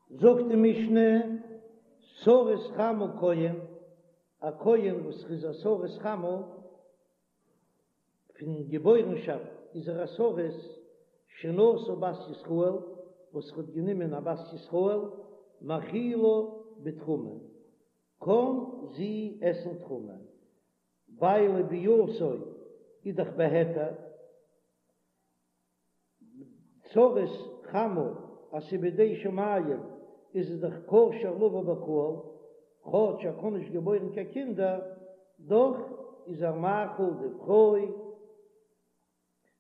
זאגט די משנה, סריס חמה כהן, א כהן וואס איז א סריס חמה, פון געבוירנשאפט איז ער א סריס, שנשא בת ישראל, וואס האט גענומען א בת ישראל, מאכילה בתרומה, קען זי עסן תרומה, ווייל ביאתו איז דאך בהיתר. סריס חמה אז ס'איז בידי שמים איז עס דאך כשר לבוא בקהל, כאטש ער קען נישט געבוירן קיין קינדער, דאך איז ער מאכיל די פרוי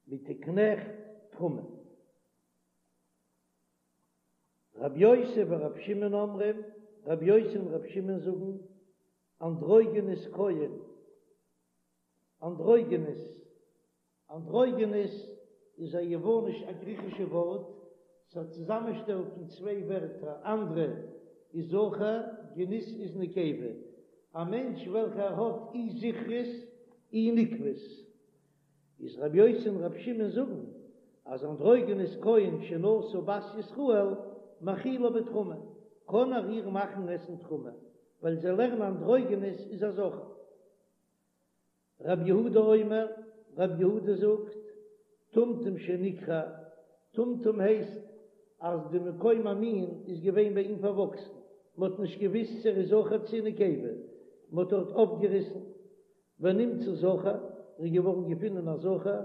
מיט די קנעכט תרומה. רב יוסי ורב שמעון אומרים, רב יוסי און רב שמעון זאגן, אנדרוגינוס כהן, אנדרוגינוס, אנדרוגינוס איז א יווניש א גריכישע ווארט, ס'איז א צוזאמענשטעל פון צוויי ווערטער, אנדרא איז זכר, גינוס איז נקבה, א מענטש וועלכער האט אי זכרות אי נקבות. איז רבי יוסי און רבי שמעון זאגן אז אנדרוגינוס כהן שנשא בת ישראל מאכילה בתרומה, קען ער איר מאכן עסן תרומה, ווייל זיי לערנען אנדרוגינוס איז א זכר. רב יהודה אומר, רב יהודה זאגט, טומטום שנקרע, טומטום הייסט אז די מקום המין איז געווען ביי אים פארוואקסן, מען האט נישט געוויסט צו ער איז זכר צו נקבה, מען האט דארט אויפגעריסן, ונמצא זכר, ער איז געווארן געפונען א זכר,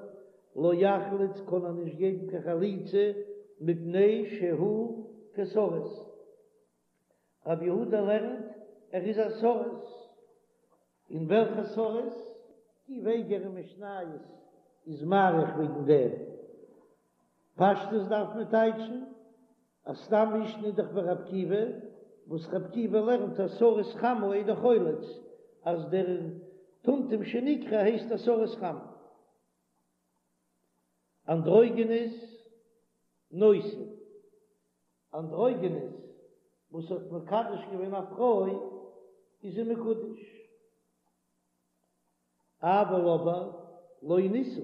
לא יחלוץ קען ער נישט געבן קיין חליצה מפני שהוא כסריס. רב יהודה לערנט ער איז א סריס. און וועלכע סריס? עקיבא איגר אין משניות איז מאריך וועגן דעם. פשטות דארף מען טייטשן אז סתם משנה איז דאך ווי רב עקיבא, וואס רב עקיבא לערנט אז סריס חמה אינו חולץ, אז דער טומטום שנקרע הייסט א סריס חמה. אנדרוגינוס נושא. אנדרוגינוס וואס האט מקדש געווען א פרוי איז זי מקודש, אבל אבער לא נישא,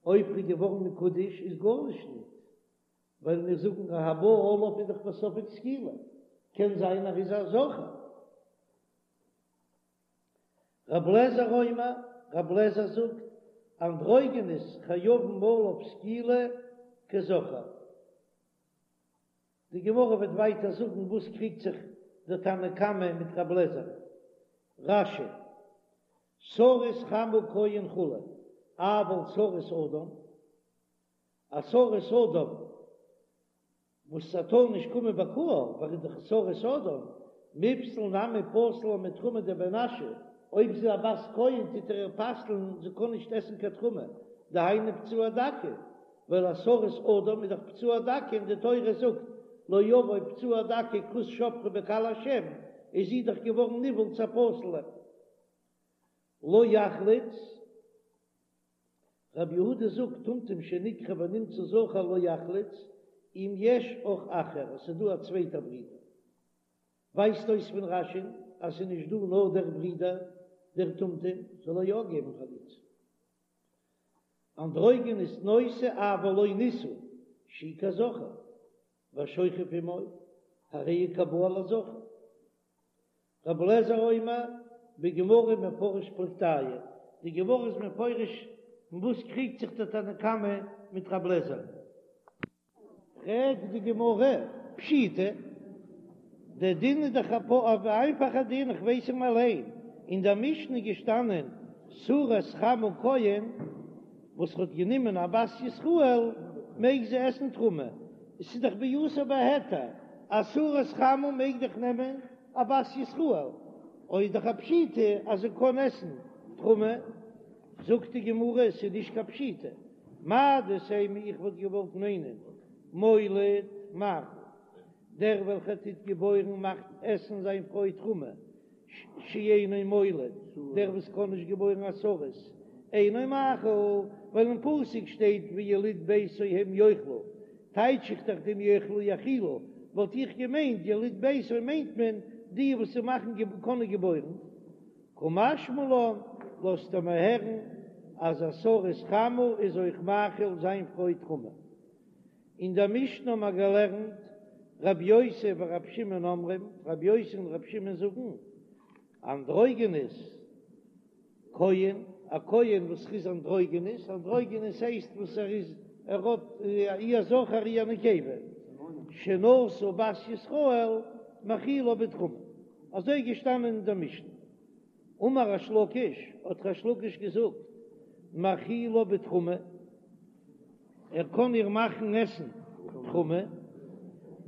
אויב ער איז געווארן מקודש איז גארנישט ניט, ווייל מיר זאגן אז הבא עליו איז דאך בספק סקילה, קען זיין ער איז א זכר. רב לעזער אומר, רב לעזער זאגט, אנדרוגינוס חייבין עליו סקילה כזכר. די גמרא וועט ווייטער זאגן וואס קריגט זיך דער תנא קמא מיט רב לעזער. רש"י, סריס חמה כהן כו', אבל סריס אדם, א סריס אדם וואס ס'טאר נישט קומען בקהל, ווייל איז דאך סריס אדם, מיפסל נמי פסיל לה מתרומה דבר נשא, אויב זי איז א בת כהן טוט ער איר פסל'ן זי קען נישט עסן קיין תרומה, דהיינו פצוע דכא, ווייל א סריס אדם איז דאך פצוע דכא און די תורה זאגט לא יבוא פצוע דכא כרות שפכה בקהל השם, איז זי דאך געווארן נבעל צו א פסול'ע. לא יחלוץ, רבי יהודה זאגט טומטום שנקרע ונמצא זכר לא יחלוץ, אם יש אח אחר, עס איז דא א צווייטער ברודער. ווייזט אויס פון רש"י אז ס'איז נישט דא נאר דער ברודער דער טומטום, זאל ער יא געבן חליצה. אנדרוגינוס נושא אבל לא נישא שהוא כזכר והשוכב עמו הרי הוא כבא על הזכר. רבי אליעזר אומר בגמרא מפרש פלוגתייהו, די גמרא איז מפרש אין וואס קריגט זיך דער תנא קמא מיט רבי אליעזר. פרעגט די גמרא, פשיטא, דער דין איז דאך א איינפאכער דין, איך ווייס אים אליין, אין דער משנה איז געשטאנען סריס חמה כהן וואס האט גענומען א בת ישראל מעג זי עסן תרומה, עס איז דאך ביאתו בהיתר, א סריס חמה מעג דאך נעמען א בת ישראל, אוי איז דאך א פשיטא אז זי קען עסן תרומה, זאגט די גמרא עס איז נישט קיין פשיטא, מהו דתימא איך וואלט געוואלט מיינען מוליד מאכיל, דער וועלכער טוט געבוירן מאכט עסן זיין פרוי תרומה, שאינו מוליד, דער וואס קען נישט געבוירן א סריס, אינו מאכיל, ווייל אין פסוק שטייט ויליד ביתו הם יאכלו, טייטש איך דאך דעם יאכלו יאכילו, וואלט איך געמיינט יליד ביתו מיינט מען די וואס מאכן קענען געבוירן. קא משמע לן, לאזט ער מיר הערן אז א סריס חמה איז אויך מאכיל זיין פרוי תרומה. אין דער משנה האבן מיר געלערנט. רבי יוסי ורבי שמעון אומרים, רבי יוסי און רבי שמעון זאגן, אנדרוגינוס כהן, א כהן וואס איז אנדרוגינוס, אנדרוגינוס הייסט וואס ער איז, ער האט אי א זכר אי א נקבה, שנשא בת ישראל מאכילה בתרומה, אזוי געשטאנען אין דער משנה. אמר ריש לקיש, האט ריש לקיש געזאגט, מאכילה בתרומה, ער קען איר מאכן עסן תרומה,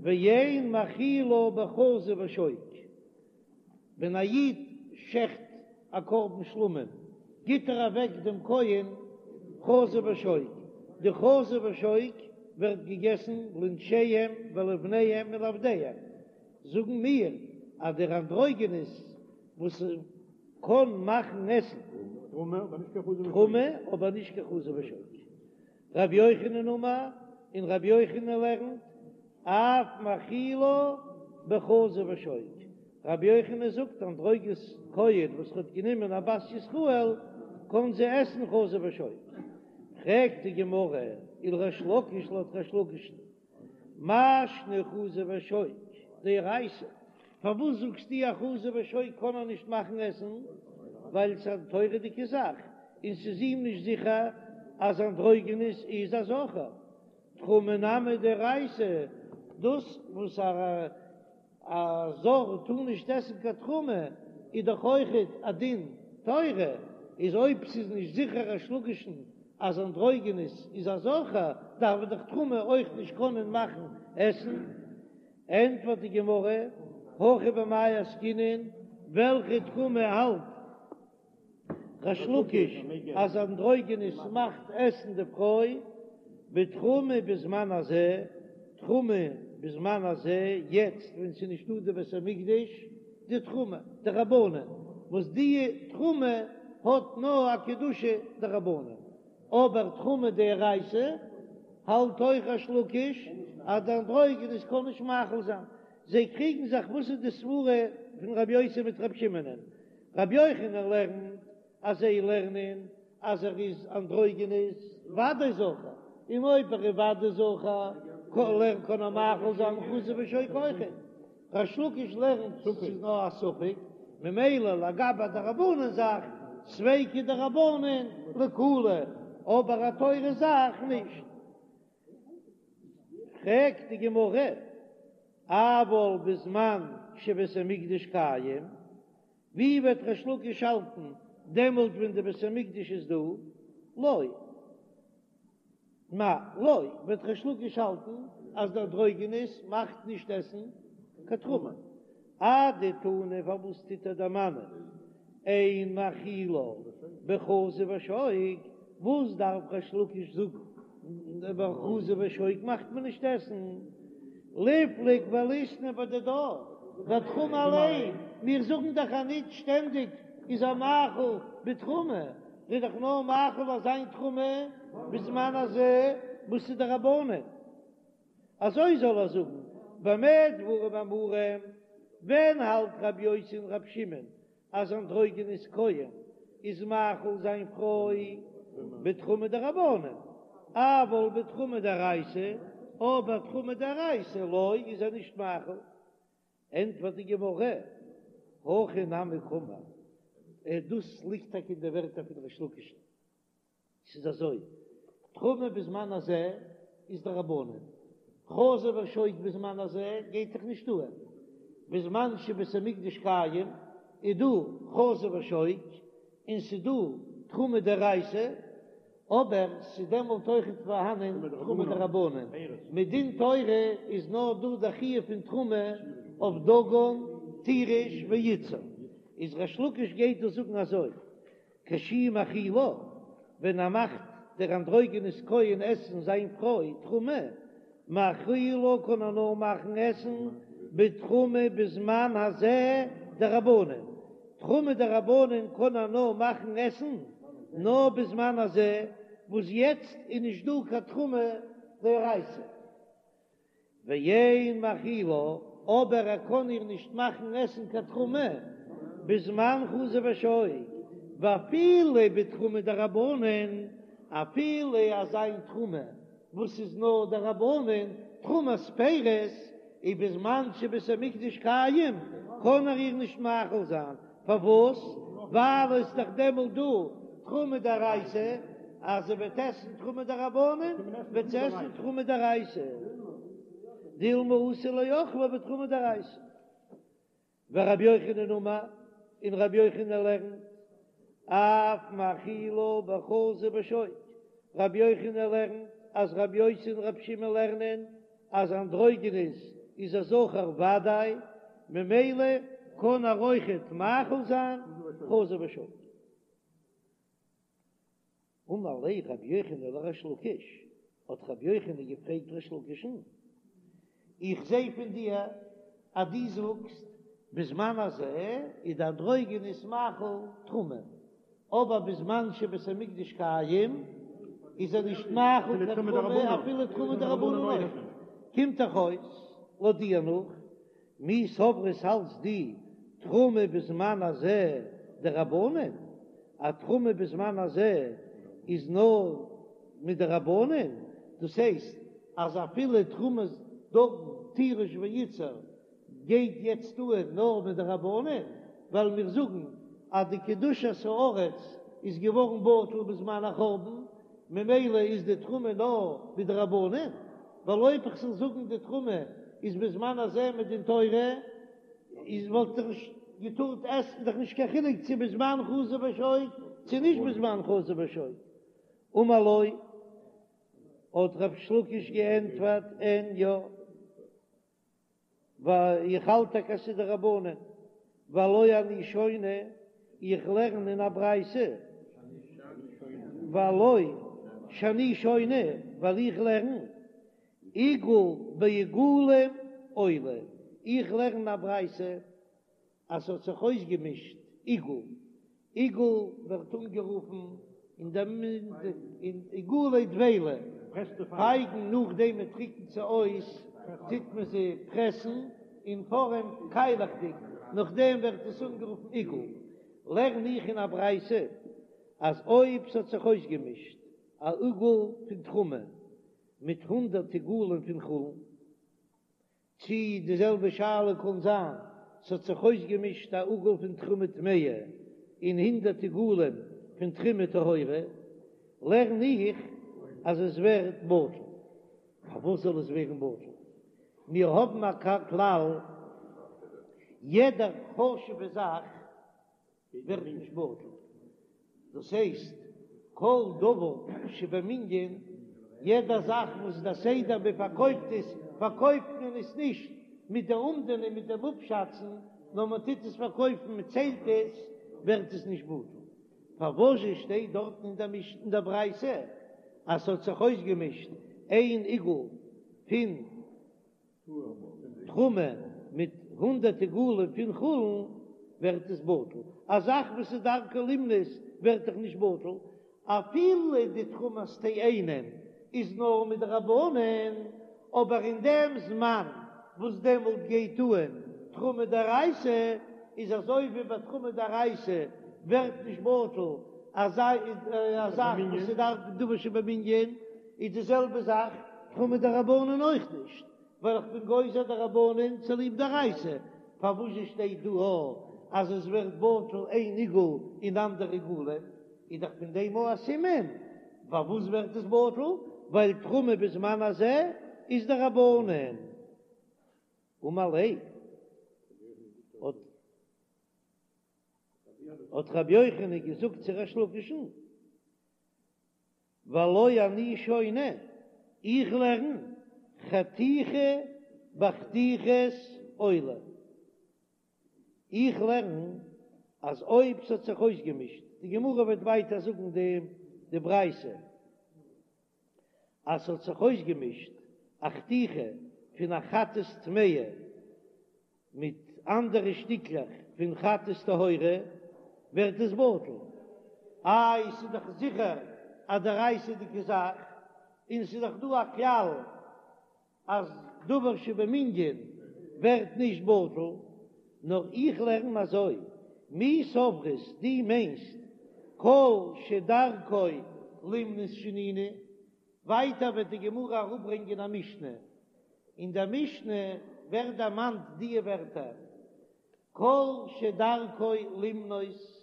ואין מאכילה בחזה ושוק, ווען א איד שעכט א קרבן שלמים, גיט ער אוועק דעם כהן חזה ושוק, די חזה ושוק ווערט געגעסן לנשיהם ולבניהם ולעבדיהם, זאגן מיר אז דער אנדרוגינוס וואס קען מאכן עסן תרומה אבער נישט קיין חזה ושוק. רבי יוחנן אמר, און רבי יוחנן לערנט, אף מאכילה בחזה ושוק. רבי יוחנן זאגט אנדרוגינוס כהן וואס האט גענומען א בת ישראל קען זי עסן חזה ושוק. פרעגט די גמרא, ולריש לקיש לויט ריש לקיש'ן מאי שנא חזה ושוק דאורייתא, פארוואס זאגסטו אז חזה ושוק קען ער נישט מאכן עסן? ווייל ס'איז א תורה'דיגע זאך און ס'איז אים נישט זיכער אז אנדרוגינוס איז א זכר. תרומה נמי דאורייתא, דאס וואס א א זר טאר נישט עסן קיין תרומה איז דאך אויכעט א דין תורה, איז אויב ס'איז נישט זיכער ריש לקיש'ן אז אנדרוגינוס איז א זכר דארף מען דאך תרומה אויך נישט קענען מאכן עסן. ענטפערט די גמרא, הכא במאי עסקינן, וועלכע תרומה האלט ריש לקיש אז אנדרוגינוס מאכט עסן די פרוי בתרומה בזמן הזה, תרומה בזמן הזה, יעצט ווען ס'איז נישטא די בית המקדש, די תרומה דרבנן, וואס די תרומה האט נאר א קדושה דרבנן, אבער תרומה דאורייתא האלט אויך ריש לקיש אז די אנדרוגינוס קען נישט מאכיל זיין, זיי קריגן זיך וואס איז די סברה פון רבי יוסי מיט רבי שמעונ'ען, רבי יוחנן לערנט אז זיי לערנען אז ער איז אנדרוגינוס ודאי זכר, און אויב ער איז ודאי זכר קען ער מאכיל זיין חזה ושוק אויכעט. ריש לקיש לערנט ס'איז נאר א ספק, ממילא לגבי דרבנן זאך ספיקא דרבנן לקולא, אבער א תורה זאך נישט. פרעגט די גמרא, אבל בזמן שבית המקדש קיים, ווי וועט ריש לקיש האלטן דעמאלט ווען די בית המקדש איז דא? לא. מאי לא, וועט ריש לקיש האלטן אז דער אנדרוגינוס מאכט נישט עסן קיין תרומה. אדתני פארוואס טוט ער דערמאנען אין מאכילה בחזה ושוק, וואס דארף ריש לקיש זאגן בחזה ושוק מאכט מען נישט עסן? ליפלוג וליתני בדידה, בתרומה אליין, מיר זאגן דאך אז ניט שטענדיג איז ער מאכיל בתרומה, איז דאך נאר מאכיל אזא תרומה בזמן הזה וואס איז דרבנן. אזוי זאל ער זאגן, במה דברים אמורים, ווען האלט רבי יוסי און רבי שמעון אז אנדרוגינוס כהן איז מאכיל זיין פרוי בתרומה דרבנן, אבל בתרומה דאורייתא, אבער תרומה דאורייתא לא איז ער נישט מאכיל. ענטפערט די גמרא, הכי נמי קאמר, דאס ליגט טאקע אין די ווערטער פון ריש לקיש'ן. ס'איז אזוי, תרומה בזמן הזה איז דרבנן, חזה ושוק בזמן הזה גייט דאך נישט אהן, בזמן שבית המקדש קיים איז דא חזה ושוק און ס'איז דא תרומה דאורייתא, אבער ס'איז דעמאלט אויכעט פארהאנען תרומה דרבנן, מדין תורה איז נאר דא די חיוב פון תרומה אויף דגן, תירוש ויצהר, איז ריש לקיש גייט דא זאגן אזוי, כשהוא מאכילה, ווען ער מאכט דער אנדרוגינוס כהן עסן זיין פרוי תרומה, מאכילה קען ער נאר מאכן עסן בתרומה בזמן הזה דרבנן, תרומה דרבנן קען ער נאר מאכן עסן נאר בזמן הזה וואס יעצט איז נישט דא קיין תרומה דאורייתא. ואין מאכילה, אבער ער קען איר נישט מאכן עסן קיין תרומה בזמן חזה ושוק, ואפילו בתרומה דרבנן, אפילו אזא איין תרומה וואס איז נאר דרבנן, תרומת פירות. ובזמן שבית המקדש קיים קען ער איר נישט מאכיל זיין, פארוואס? ווייל עס איז דאך דעמאלט דא תרומה דאורייתא, אז זי וועט עסן תרומה דרבנן וועט זי עסן תרומה דאורייתא, דילמא אתי לאוכלא בתרומה דאורייתא. ורבי יוחנן אמר, און רבי יוחנן לערנט, אף מאכילה בחזה ושוק, רבי יוחנן לערנט אז רבי יוסי און רבי שמעון לערנען אז אנדרוגינוס איז א זכר ודאי, ממילא קען ער אויכעט מאכיל זיין חזה ושוק. אמר ליה רבי יוחנן לריש לקיש, האט רבי יוחנן געפרעגט ריש לקיש'ן, איך זע פון דיר אז דו זאגסט בזמן הזה איז די אנדרוגינוס מאכיל תרומה, אבער בזמן שבית המקדש קיים איז ער נישט מאכיל קיין תרומה אפילו תרומה דרבנן אויך נישט, קומט דאך אויס לויט דיר נאך מי סברת האלטסט דו תרומה בזמן הזה דרבנן, א תרומה בזמן הזה איז נאר מדרבנן, דאס הייסט אז אפילו תרומת דגן תירוש ויצהר גייט יעצט אן נאר מדרבנן, ווייל מיר זאגן אז די קדושת הארץ איז געווארן בטל בזמן החורבן, ממילא איז די תרומה נאר מדרבנן. ווייל אויב איך זאל זאגן די תרומה איז בזמן הזה מדין תורה, איז וואלט איך נישט געטארט עסן, דאך נישט קיין חילוק צו בזמן חזה ושוק צו נישט בזמן חזה ושוק. אמר לו, האט ריש לקיש געענטפערט, אין יא. ווייל איך האלט טאקע אז ס'איז דרבנן, והלא אני שונה, איך לערן אין א ברייתא, והלא שאני שונה, ווייל איך לערן, עיגול בעיגולים עולה, איך לערן א ברייתא אז ס'האט זיך אויסגעמישט עיגול, עיגול ווערט אנגערופן אין דעם אין עיגולי דבילה, פייגן נאכדעם מען טריקנט זיי אויס טוט מען זיי פרעסן אין פארעם קיילעכדיג, נאכדעם ווערט עס אנגערופן עיגול. לערן איך אין א ברייתא אז אויב ס'האט זיך אויסגעמישט א עיגול פון תרומה מיט הונדרעט עיגולים פון חולין, צי די זעלבע שאלה קאן זיין, ס'האט זיך אויסגעמישט א עיגול פון תרומה טמאה און הונדרעט עיגולים פון תרומה טהורה, לערן איך אז עס ווערט בטל. פארוואס זאל עס ווערן בטל? מיר האבן א כלל, יעדע חשוב'ע זאך ווערט נישט בטל, דאס הייסט כל דבר שבמנין, יעדע זאך וואס דער סדר מען פארקויפט עס, פארקויפט מען עס נישט מיט די אומדנא מיט דעם אפשאצן, נאר מען טוט עס פארקויפן מען ציילט עס, ווערט עס נישט בטל. פארוואזשע שטייט דארטן אין דער משנה אין דער ברייתא אז ס'האט זיך אויסגעמישט איין עיגול פון תרומה מיט הונדרעט עיגולים פון חולין ווערט עס בטל, א זאך וואס איז דרכו לימנות ווערט דאך נישט בטל, אפילו די תרומת תאנים איז נאר מדרבנן, אבער אין דעם זמן וואס דעמאלט גייט אן תרומה דאורייתא, איז אזוי ווי ביי תרומה דאורייתא ווערט נישט בטל אזא זאך וואס איז דרכו דבר שבמנין, איז די זעלבע זאך תרומה דרבנן אויך נישט, ווייל איך בין גוזר דרבנן צוליב דאורייתא, פארוואס זשע שטייט דא א אז עס ווערט בטל איין עיגול און אנדערע עיגולים, איז דאך פון דעם א סימן פארוואס ווערט עס בטל, ווייל תרומה בזמן הזה איז דרבנן. אמר ליה האט האט רבי יוחנן געזאגט צו ריש לקיש'ן, והלא אני שונה, איך לערן חתיכה בחתיכות עולה, איך לערן אז אויב ס'האט זיך אויסגעמישט, די גמרא וועט ווייטער זאגן די ברייתא, אז ס'האט זיך אויסגעמישט א חתיכה פון א חטאת טמאה מיט אנדערע שטיקלעך פון חטאת טהורה ווערט עס בטל. איי ס'איז דאך זיכער א דאורייתא'דיגע זאך, און ס'איז דאך דא א כלל אז דבר שבמנין ווערט נישט בטל, נאר איך לערן אזוי, מי סברת דו מיינסט כל שדרכו לימנות שנינו, ווייטער וועט די גמרא אראפברענגען א משנה, אין דער משנה. ווערט דערמאנט די ווערטער כל שדרכו למנות,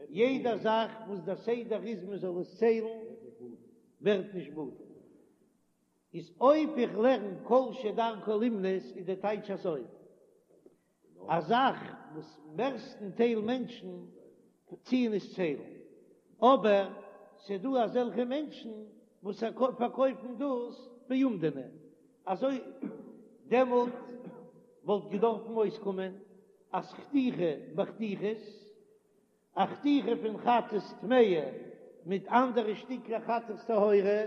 יעדע זאך וואס דער סדר איז מען זאל עס ציילן ווערט נישט בטל. איז אויב איך לערן כל שדרכו למנות איז די טייטש אזוי, א זאך וואס מערסטן טייל מענטשן טוען עס ציילן, אבער ס'דא אזעלכע מענטשן וואס פארקויפן דאס באומדנא, אזוי דעמאלט וואלט געדארפן אויסקומען אז חתיכה בחתיכות א חתיכה פון חטאת טמאה מיט אנדערע שטיקלעך חטאת טהורה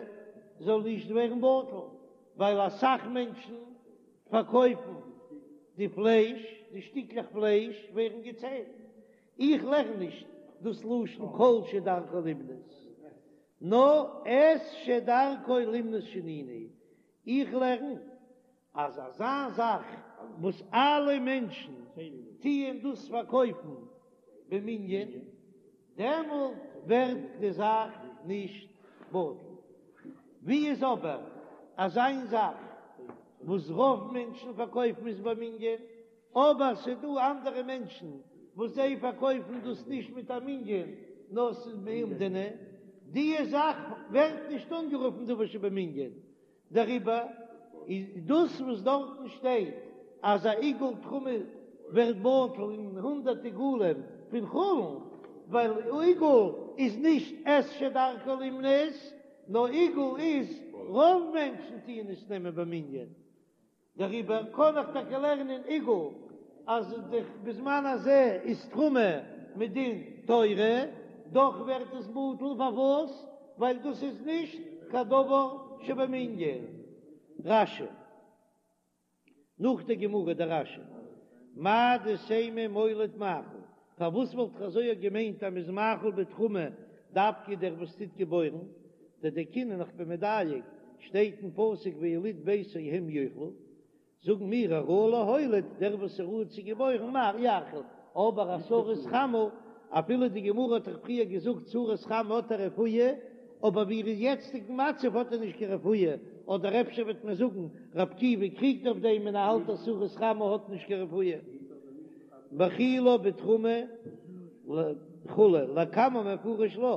זאל נישט ווערן בטל, ווייל אסאך מענטשן פארקויפן די פלייש, די שטיקלעך פלייש ווערן געציילט. איך לערן נישט דאס לשון כל שדרכו למנות, נאר את שדרכו למנות שנינו, איך לערן אז אזא זאך וואס אלע מענטשן טוען דאס פארקויפן במנין, דעמאלט ווערט די זאך נישט בטל. ווי איז אבער אזא זאך וואס רוב מענטשן פארקויפן עס במנין, אבער ס'דא אנדערע מענטשן וואס זיי פארקויפן דאס נישט מיט א מנין נאר ס'איז באומדנא, די זאך ווערט נישט אנגערופן דבר שבמנין, דעריבער איז דאס וואס דארטן שטייט אז א עיגול תרומה ווערט בטל אין הונדערט עיגולים פון חולין, ווייל עיגול איז נישט את שדרכו למנות, נאר עיגול איז רוב מענטשן טוען עס נעמען במנין, דעריבער קען איך טאקע לערנען עיגול אז בזמן הזה איז תרומה מדין תורה, דאך ווערט עס בטל, פארוואס? ווייל דאס איז נישט קיין דבר שבמנין. רש"י, נאך די גמרא דער רש"י, מהו דתימא מוליד מאכיל, פארוואס וואלט איך אזוי געמיינט אז מ'איז מאכיל בתרומה דווקא דער וואס טוט געבוירן, דדייקינן איך בין מדייק, שטייט אין פסוק ויליד ביתו הם יאכלו, זאגן מיר הראוי להוליד, דער וואס איז ראוי צו געבוירן יאכיל, אבער א סריס חמה, אפילו די גמרא האט דאך פריער געזאגט סריס חמה האט א רפואה, אבער ווי ער איז יעצטיגן מצב האט ער נישט קיין רפואה, אדער אפשר וועט מען זאגן רבי עקיבא קריגט אויף דעם און ער האלט אז סריס חמה האט נישט קיין רפואה. מאכילו בתרומה וכו', לקמן מפרש לה,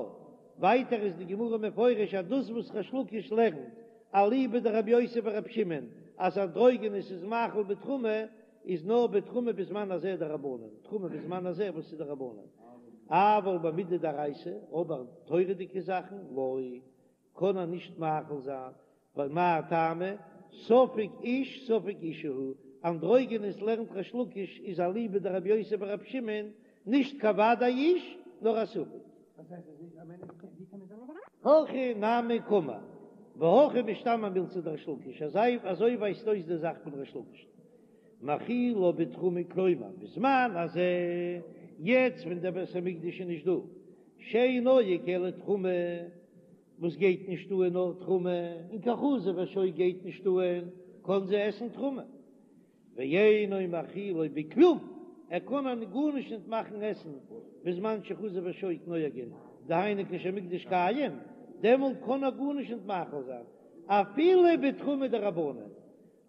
ווייטער איז די גמרא מפרש אז דאס וואס ריש לקיש לערנט אליבא דרבי יוסי ברבי שמעון אז אנדרוגינוס איז מאכיל בתרומה איז נאר בתרומה בזמן הזה דרבנן, תרומה בזמן הזה וואס איז דרבנן, אבל במידי דאורייתא, אבער תורה'דיגע זאכן לא, קען ער נישט מאכיל זיין, ווייל מאי טעמא, ספק איש ספק אישה הוא, אנדרוגינוס לערנט ריש לקיש איז אליבא דרבי יוסי ברבי שמעון, נישט קיין ודאי איש, נאר א ספק. הכי נמי קאמר, והכי משתמע מילתא דריש לקיש, אזוי ווייזט אויס די זאך פון ריש לקיש. מאכילו בתרומה כלומר בזמן הזה, יעצט ווען דער בית המקדש איז נישט דא, שאין נוהג אלא תרומה, וואס גייט נישט אהן נאר תרומה, און קיין חזה ושוק גייט נישט אהן, קען זי עסן תרומה. ואינו מאכילו בכלום, ער קען איר גארנישט נישט מאכן עסן בזמן שחזה ושוק נוהגין, דהיינו כשהמקדש קיים, דעמאלט קען ער גארנישט נישט מאכיל זיין, אפילו בתרומה דרבנן,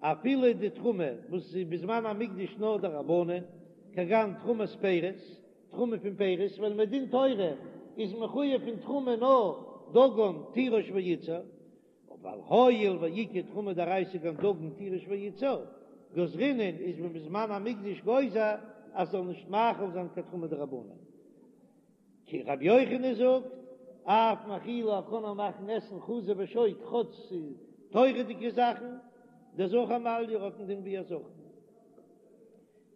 אפילו די תרומה וואס איז בזמן המקדש נאר דרבנן, כגון תרומת פירות, תרומה פון פירות, ווייל מדין תורה איז מחויב פון תרומה נאר דגן תירוש ויצהר, אבער הואיל ואיכא תרומה דאורייתא כגון דגן תירוש ויצהר, גזרינן איז מען בזמן המקדש גוזר אז זאל נישט מאכיל זיין קיין תרומה דרבנן. כי רבי יוחנן זאגט, אף מאכילו ער קען איר מאכן עסן חזה ושוק כאטש ס'איז תורה'דיגע זאכן, דזכר מעליא האט אין דין ווי א זכר.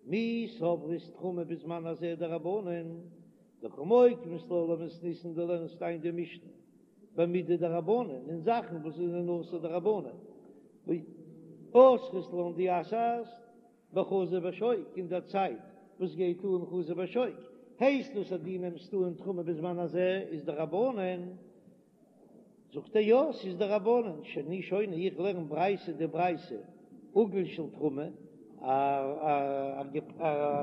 מי סברת תרומה בזמן הזה דרבנן, דקא מוקמת לה למתניתין דו לערנסט איין די משנה במידי דרבנן אין זאכן וואס זענען אסור דרבנן, ואסרת לן דו אסר'סט בחזה ושוק אין דער צייט וואס גייט אן חזה ושוק, הייסט דאס אז דו נעמסט אן תרומה בזמן הזה איז דרבנן? זאגט ער יא ס'איז דרבנן, שאני שונה איך לערן ברייתא די ברייתא עיגול של תרומה, א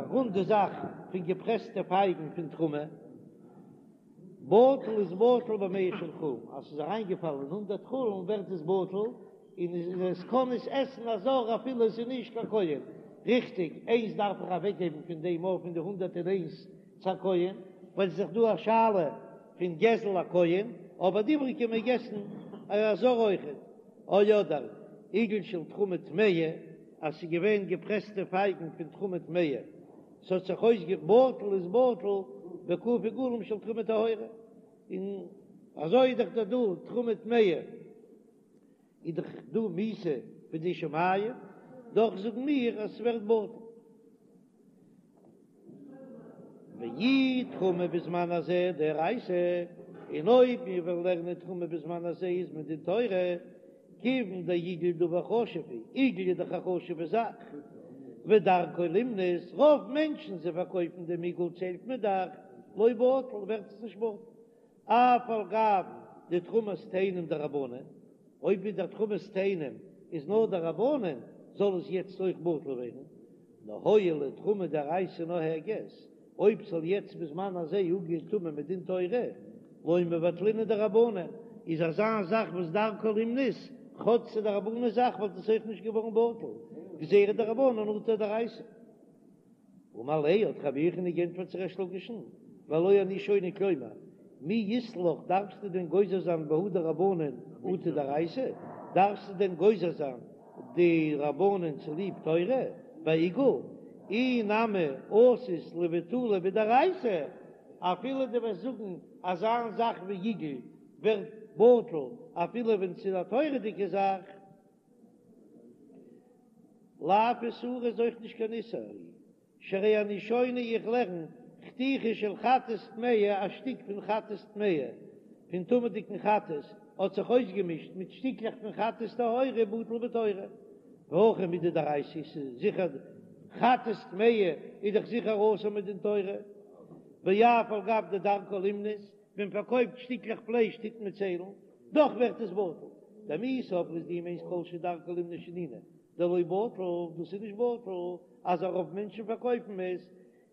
רונדע זאך פון געפרעסטע פייגן פון תרומה, בטל איז בטל במאה של חולין, אז ס'איז אריינגעפאלן אין הונדערט חולין ווערט עס בטל, און עס קען עס עסן א זר אפילו עס איז נישט קיין כהן. ריכטיג, איינס דארף איך אוועקגעבן פון דעם אויף פון די 101 צו א כהן, ווייל ס'איז דאך דא א שאלה פון גזל הכהן, אבער די איבריגע מעג עסן א זר אויכעט. או אדער עיגול של תרומה טמאה, אז ס'איז געווען געפרעסטע פייגן פון תרומה טמאה, ס'האט זיך אויסגע בטל איז בטל בק' עיגולים של תרומה טהורה, און אזוי איז דאך דא דא תרומה טמאה איז דאך דא מיתה בידי שמים, דאך זאגן מיר אז ס'ווערט בטל. ואי תרומה בזמן הזה דאורייתא, און אויב מיר וועלן לערנען תרומה בזמן הזה איז מדין תורה, כיוון דעיגול דבר חשוב הוא, עיגול איז דאך א חשוב'ע זאך, ודרכו לימנות, רוב מענטשן זיי פארקויפן דעם עיגול ציילט מען דאך, לא בטל ווערט עס נישט בטל, אף על גב דתרומת תאנים דרבנן, אויב איז דער תרומת תאנים איז נאר דרבנן זאל עס יעצט אויך בטל ווערן, נאר הואיל ותרומה דאורייתא נוהגת, אויב ס'זאל יעצט בזמן הזה אפגיין טומאה מדין תורה, לא מבטלינן דרבנן, איז אזא זאך וואס דרכו לימנות, כאטש ס'איז דרבנן זאך וואלט עס אויך נישט געווארן בטל, גזירה דרבנן אטו דאורייתא. אמר ליה האט רבי יוחנן גענטפערט צו ריש לקיש'ן, והלא אני שונה כלומר, מי אית לך דארפסטו דען גוזר זיין בהא דרבנן אטו דאורייתא? דארפסטו דען גוזר זיין די רבנן צוליב תורה בעיגול? אי נמי אתית לבטולי בדאורייתא, אפילו דו וועסט זאגן אזא זאך ווי עיגול ווערט בטל אפילו ווען ס'איז א תורה'דיגע זאך. לאו איסורא איז אויך נישט קיין איסור, שהרי אני שונה איך לערן חתיכה של חטאת טמאה א שטיק פון חטאת טמאה פון טמא'דיגן חטאת האט זיך אויסגעמישט מיט שטיקלעך פון חטאת טהורה בטל בתורה והכא מידי דאורייתא ס'איז זיכער חטאת טמאה איז דאך זיכער אסור מדין תורה ואף על גב דדרכה לימנות ווען מ'פארקויפט שטיקלעך פלייש טוט מען ציילן, דאך ווערט עס בטל. דמי סברת דו מיינסט כל שדרכו לימנות שנינו, דלא בטל, דאס איז נישט בטל אז א רוב מענטשן פארקויפן עס,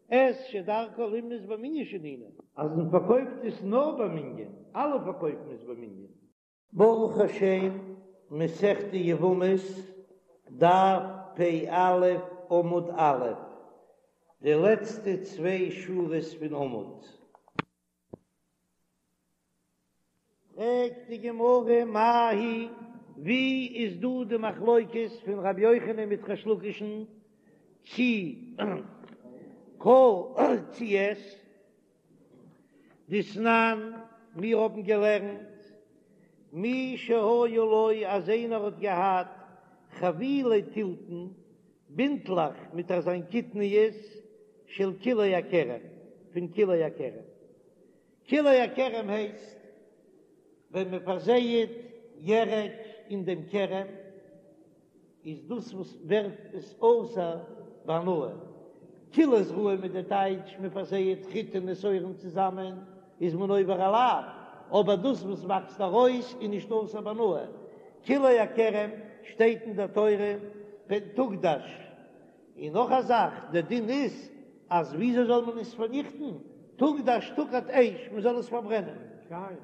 את שדרכו לימנות במנין שנינו. אז מען פארקויפט עס נאר במנין, אלע פארקויפן עס במנין. ברוך השם, מסכת יבמות, דף פ"א עמוד א', די לעצטע צוויי שורות פון עמוד. פרעגט די גמרא מאי היא, ווי איז דא די מחלוקת פון רבי יוחנן מיט ריש לקיש'ן צי כל צי את דתנן, מיר האבן געלערנט מי שהיה לו אז איינער האט געהאט חבילי תלתן בינטלעך מיט אזיין קטניות של כלאי הכרם, פון כלאי הכרם. כלאי הכרם הייסט ווען מען פארזייעט ירק אין דעם כרם, איז דאס וואס ווערט עס אסור בהנאה. כלאי זרעים איז די טייטש מען פארזייעט חיטים און שעורים צוזאמען איז מען עובר א לאו, אבער דאס וואס וואקסט ארויס איז נישט אסור בהנאה. כלאי הכרם שטייט אין דער תורה פן תוקדש. און נאך א זאך, דער דין איז אז וויאזוי זאל מען עס פארניכטן, תוקדש תוקד אש, מען זאל עס פארברענען,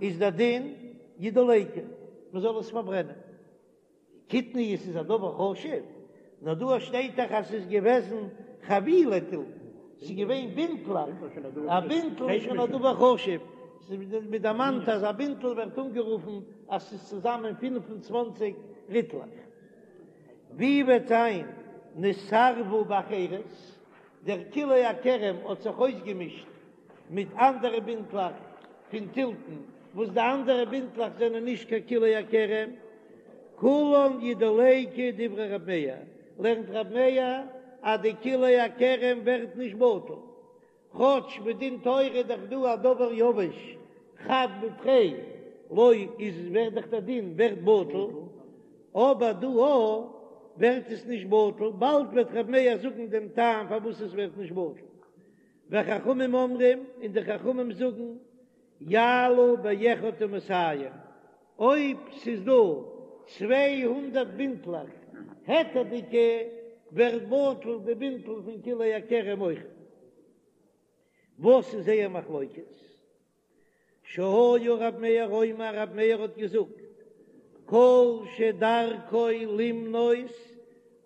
איז דער דין ידלקו, מען זאל עס פארברענען. קטניות איז א דבר חשוב, נאר דא שטייט דאך אז ס'איז געוועזן חבילי תלתן, ס'איז געווען בינטלעך, א בינטל איז שוין א דבר חשוב, מען דערמאנט אז א בינטל ווערט אנגערופן אז ס'איז צוזאמען 25 ריטלעך. ווי וועט זיין נתערבו באחרות, דער כלאי הכרם האט זיך אויסגעמישט מיט אנדערע בינטלעך פון תלתן, וואס די אנדערע בינטלעך זענען נישט קיין כלאי הכרם, כולן ידלקו דברי רב מאיר, לערנט רב מאיר אז די כלאי הכרם ווערט נישט בטל, כאטש מדין תורה איז דאך דא א דבר יבש חד בתרי לא איז ווערט דאך דער דין ווערט בטל, אבער דא א ווערט עס נישט בטל, באלד וועט ר' מאיר זאגן דעם טעם פארוואס עס ווערט נישט בטל, וחכמים אומרים און די חכמים זאגן יעלו באחד ומאתים, אויב ס'איז דא 200 בינטלעך היתר'דיגע ווערט בטל די בינטל פון כלאי הכרם אויך. וואס איז זייער מחלוקת? שהיה רב מאיר אומר, רב מאיר האט געזאגט, כל שדרכו לימנות.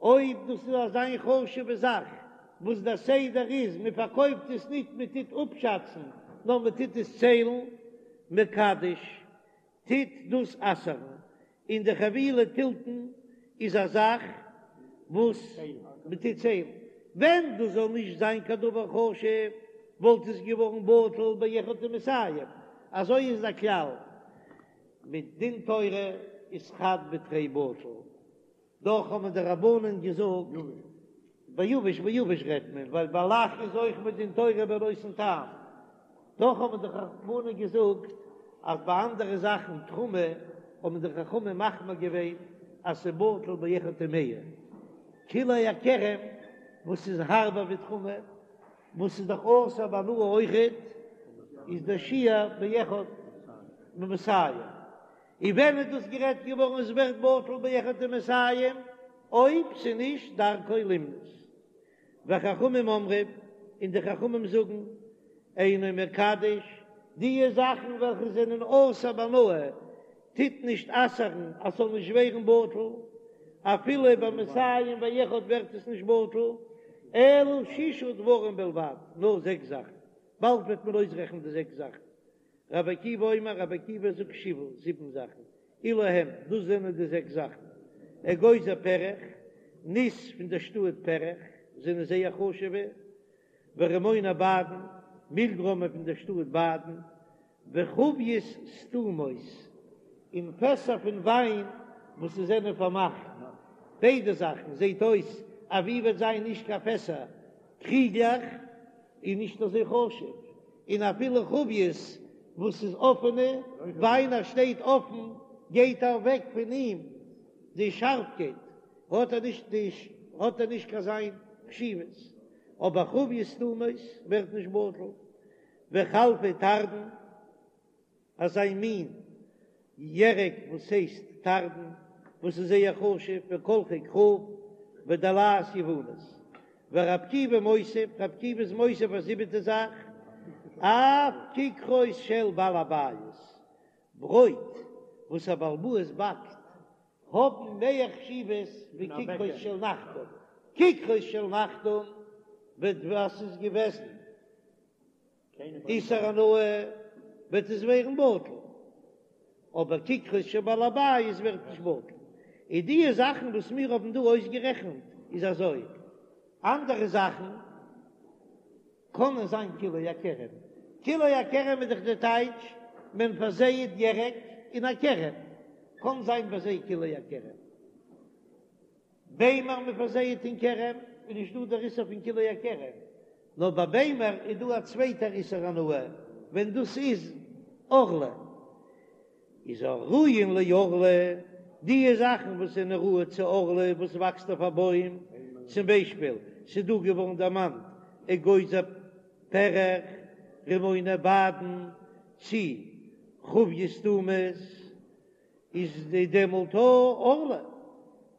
אויב דאס איז אזא חשובע זאך וואס דער סדר איז מען פארקויפט עס ניט מען טוט אפשאצן נאר מען טוט עס ציילן, מקדש, טוט דאס אסר'ן, און די חבילי תלתן איז א זאך וואס מען טוט ציילן, ווען דאס זאל נישט זיין קיין דבר חשוב וואלט עס געווארן בטל באחד ומאתים, אזוי איז דער כלל מדין תורה איז חד בתרי בטל. דאך האבן די רבנן געזאגט ביבש ביבש רעדט מען, ווייל ביי לח איז אויך מדין תורה בנותן טעם, דאך האבן די רבנן געזאגט אז ביי אנדערע זאכן תרומה האבן די חכמים מחמיר געווען אז ס'בטל באחד ומאה, כלאי הכרם וואס איז הארבער ווי תרומה וואס איז דאך אסור בהנאה אויכעט איז דער שיעור באחד ומאתים. און ווען איז דאס גערעדט געווארן עס ווערט בטל באחד ומאתים אויב ס'נישט דרכו למנות. וחכמים אומרים, און די חכמים זאגן, אינו מקדש, דיע זאכן וועלכע זענען אסור בהנאה טוט נישט אסר'ן אז ס'זאל נישט ווערן בטל, אפילו במאתים ואחד ווערט עס נישט בטל, אלא שישה דברים בלבד, נאר זעקס זאכן, באלד וועט מען אויסרעכענען די זעקס זאכן. רבי עקיבא אומר, רבי עקיבא זאגט שבעה, זיבן זאכן, אלו הם, דאס זענען די זעקס זאכן, אגוזי פרך, ניס פון דער שטאט פרך, זענען זייער חשוב'ע, ורימוני בדן, מילגרוימען פון דער שטאט בדן, וחביות סתומות, און פעסער פון וויין וואס זיי זענען פארמאכט, ביידע זאכן זעט אויס אז ווי וועט זיין נישט קיין פעסער, קריגלעך איז נישט אזוי חשוב, און אפילו חביות וואס איז אפענע וויין אז שטייט אפן גייט אוועק פון אים די שארפקייט האט ער נישט די האט ער נישט קיין זיין חשיבות, אבער חביות סתומות ווערט נישט בטל, וחלפי תרדין. אזא מין ירק וואס הייסט תרדין וואס איז זייער חשוב וקלחי כרוב ודלעת יוונית ורבי עקיבא מוסיף, רבי עקיבא איז מוסיף א זיבעטע זאך, אף כיכרות של בעל הבית, ברויט וואס א בעל הבית באקט האבן מער חשיבות ווי כיכרות של נחתום, כיכרות של נחתום וועט וואס איז געוועזן. איסור הנאה וועט עס ווערן בטל, אבער כיכרות של בעל הבית ווערט נישט בטל. און דיע זאכן וואס מיר האבן דא אויסגערעכנט איז אזוי, אנדערע זאכן קענען זיין כלאי הכרם, כלאי הכרם איז דאך די טייטש מען פארזייעט ירק אין א כרם, קען זיין ביי זיי כלאי הכרם. ביימער מען פארזייעט אין כרם איז נישט דא דער איסור פון כלאי הכרם, נאר ביי ביימער איז דא א צווייטער איסור הנאה ווען דאס איז ערלה, איז הראויין לערלה, דיע זאכן וואס זענען ראוי צו ערלה וואס וואקסט אויף א בוים, צום ביישפיל ס'איז דא געווארן דערמאנט אגוזי פרך, רימוני בדן, צי חביות סתומות. איז די דעמאלט ערלה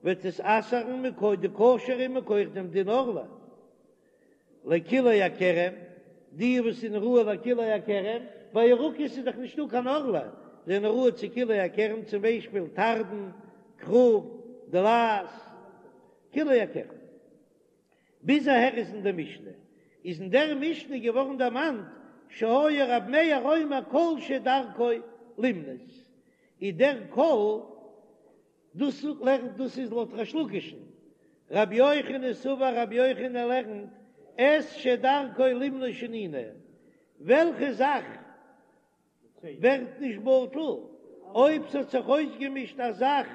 וועט עס אסר'ן מכח די כשר'ע מכח דעם דין ערלה לכלאי הכרם, די וואס זענען ראוי לכלאי הכרם, ביי ירקות איז דאך נישטא קיין ערלה, זענען ראוי צו כלאי הכרם צום ביישפיל תרדין, כרוב, דלעת, כלאי הכרם. ביז אהער איז אין דער משנה, איז אין דער משנה געווארן דערמאנט שהיה רב מאיר אומר כל שדרכו למנות, איז דער כל דאס לערנט דאס איז לויט ריש לקיש'ן, רבי יוחנן סבר רבי יוחנן לערנט את שדרכו למנות שנינו, וועלכע זאך ווערט נישט בטל אויב ס'האט זיך אויסגעמישט א זאך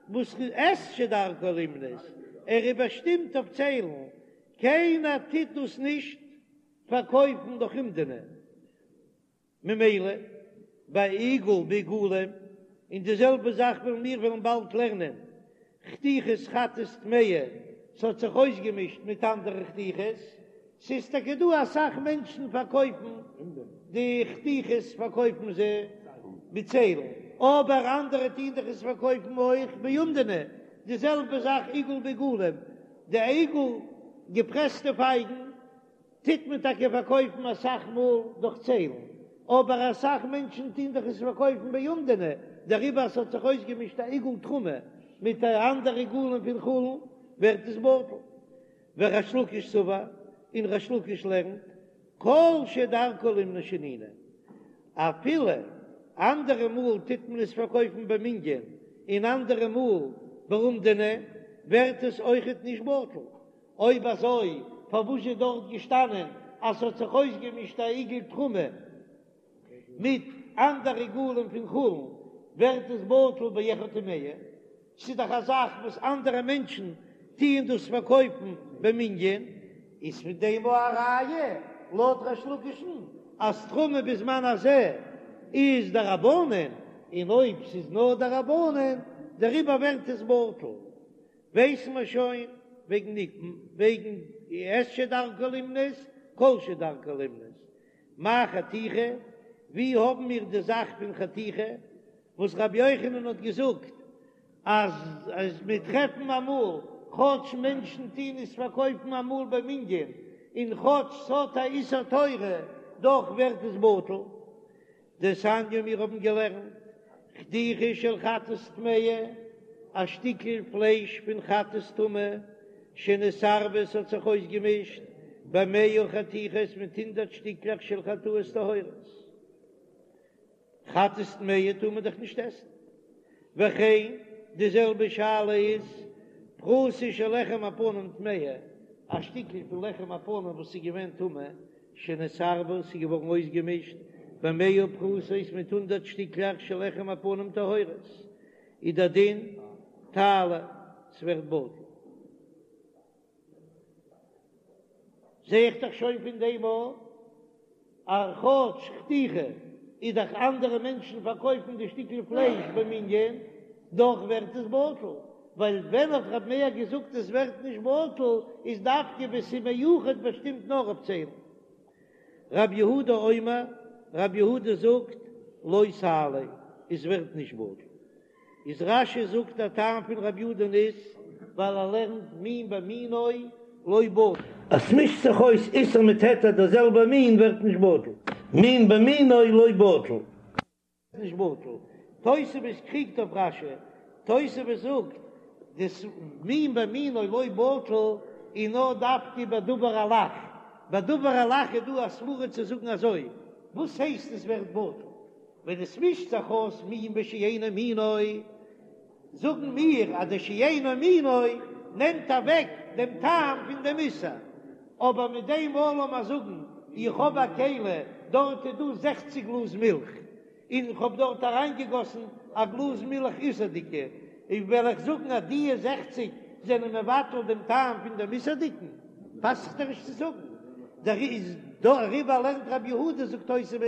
וואס את שדרכו למנות, ער איז באשטימט אויף ציילן, קיינער טוט דאס נישט פארקויפן דורך אומדנא, ממילא ביי עיגול בעיגולים, און די זעלבע זאך וועלן מיר וועלן באלד לערנען חתיכות חטאת טמאה, ס'האט זיך אויסגעמישט מיט אנדערע חתיכות, ס'איז טאקע דא אסאך מענטשן פארקויפן די חתיכות פארקויפן זיי מיט ציילן, אבער אנדערע טוהן דאך עס פארקויפן אויך באומדנא, די זעלבע זאך עיגול בעיגולים, די עיגול געפרעסטע פייגן טוט מען טאקע פארקויפן אסאך מאל דורך ציילן, אבער אסאך מענטשן טוהן דאך עס פארקויפן באומדנא, דעריבער אז ס'האט זיך אויסגעמישט א עיגול תרומה מיט אנדערע עיגולים פון חולין. ווערט עס בטל. וריש לקיש סבר, און ריש לקיש לערנט, כל שדרכו לימנות שנינו, אפילו אנדערע מאל טוט מען עס פארקויפן במנין און אנדערע מאל באומדנא, ווערט עס אויכעט נישט בטל. אויב אזוי פארוואס איז דארט געשטאנען אז ס'האט זיך אויסגעמישט א עיגול תרומה מיט אנדערע עיגולים פון חולין, ווערט עס בטל באחד ומאה? ס'איז דאך א זאך וואס אנדערע מענטשן טוען דאס פארקויפן במנין, איז פון דעם א ראיה לויט ריש לקיש'ן אז תרומה בזמן הזה איז דרבנן, און אויב ס'איז נאר דרבנן דעריבער ווערט עס בטל. ווייסן מיר שוין וועגן וועגן את שדרכו לימנות, כל שדרכו לימנות. מאי חתיכה? ווי האבן מיר די זאך פון חתיכה וואס רבי יוחנן האט געזאגט אז אז מיר טרעפן אמאל כאטש מענטשן טוהן עס פארקויפן אמאל במנין און כאטש ס'האט א איסור תורה דאך ווערט עס בטל. דתניא מיר האבן געלערנט חתיכה של חטאת טמאה, א שטיקל פלייש פון חטאת טמא, שנתערבה ס'האט זיך אויסגעמישט במאה חתיכות מיט הונדרעט שטיקלעך של חטאות טהורות. חטאת טמאה טאר מען דאך נישט עסן. וכן די זעלבע שאלה איז פרוסה של לחם הפנים טמאה, א שטיקל פון לחם הפנים וואס איז געווען טמא, שנתערבה, ס'איז געווארן אויסגעמישט במאה פרוסות מיט הונדרעט שטיקלעך של לחם הפנים טהורות, איז דער דין תעלה, ס'ווערט בטל. זע איך דאך שוין פון דעם אויך אז כאטש חתיכה איז דאך אנדערע מענטשן פארקויפן די שטיקל פלייש במנין, דאך ווערט עס בטל, ווייל ווען האט רב מאיר געזאגט עס ווערט נישט בטל איז דווקא ווען ס'איז מיוחד באשטימט נאר אויף ציילן. רב יהודה אומר, רב יהודה זאגט לא תעלה, עס ווערט נישט בטל. איז רש"י זאגט דער טעם פון רב יהודה'ן איז ווייל ער לערנט מין במינו לא בטל. אז ס'מישט זיך אויס איסור מיט היתר דער זעלבער מין ווערט נישט בטל, מין במינו לא בטל. נישט בטל. תוספות קריגט אויף רש"י, תוספות זאגט דאס מין במינו לא בטל איז נאר דווקא בדבר הלח, בדבר הלח איז דא א סברא צו זאגן אזוי, וואס הייסט עס ווערט בטל? ווען עס מישט זיך אויס מין בשאינו מינו, זאגן מיר אז די שאינו מינו נעמט אוועק דעם טעם פון דעם איסור, אבער מיט דעם אלעם אז זאגן איך האב א כלי דארט איז דא זעכציק גלאז מילך און איך האב דארט אריינגעגאסן א גלאז מילך איסור'דיגע, און וועל איך זאגן אז דיע זעכציק זענען מבטל דעם טעם פון דעם איסור'דיגן, פאסט זיך דאך נישט צו זאגן. דעריבער לערנט רבי יהודה זאגט תוספות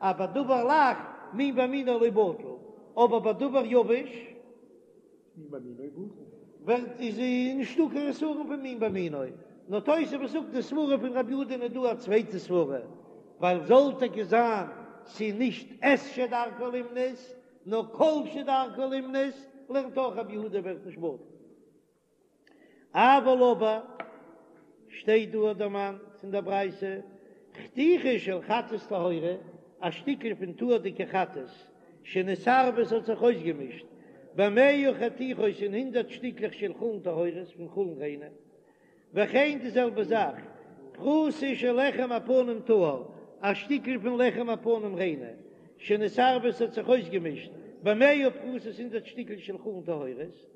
אז בדבר לח מין במינו לא בטל, אבער בדבר יבש ווערט איז נישטא קיין חסרון פון מין במינו, נאר תוספות זאגט די סברה פון רבי יהודה איז דא א צווייטע סברה, ווייל זאל טאקע זיין ס'איז נישט את שדרכו לימנות נאר כל שדרכו לימנות, לערנט אויך רבי יהודה ווערט נישט בטל. אבל אבער שטייט דא דערמאנט אין דער ברייתא חתיכה של חטאת טהורה, א שטיקל פון טהור'דיגע חטאת שנתערבה ס'האט זיך אויסגעמישט במאה חתיכות אין הונדרעט שטיקלעך של חולין טהורות פון חולין ריינע, וכן די זעלבע זאך פרוסה של לחם הפנים טהור, א שטיקל פון לחם הפנים ריינע שנתערבה ס'האט זיך אויסגעמישט במאה פרוסות הונדרעט שטיקל של חולין טהורות,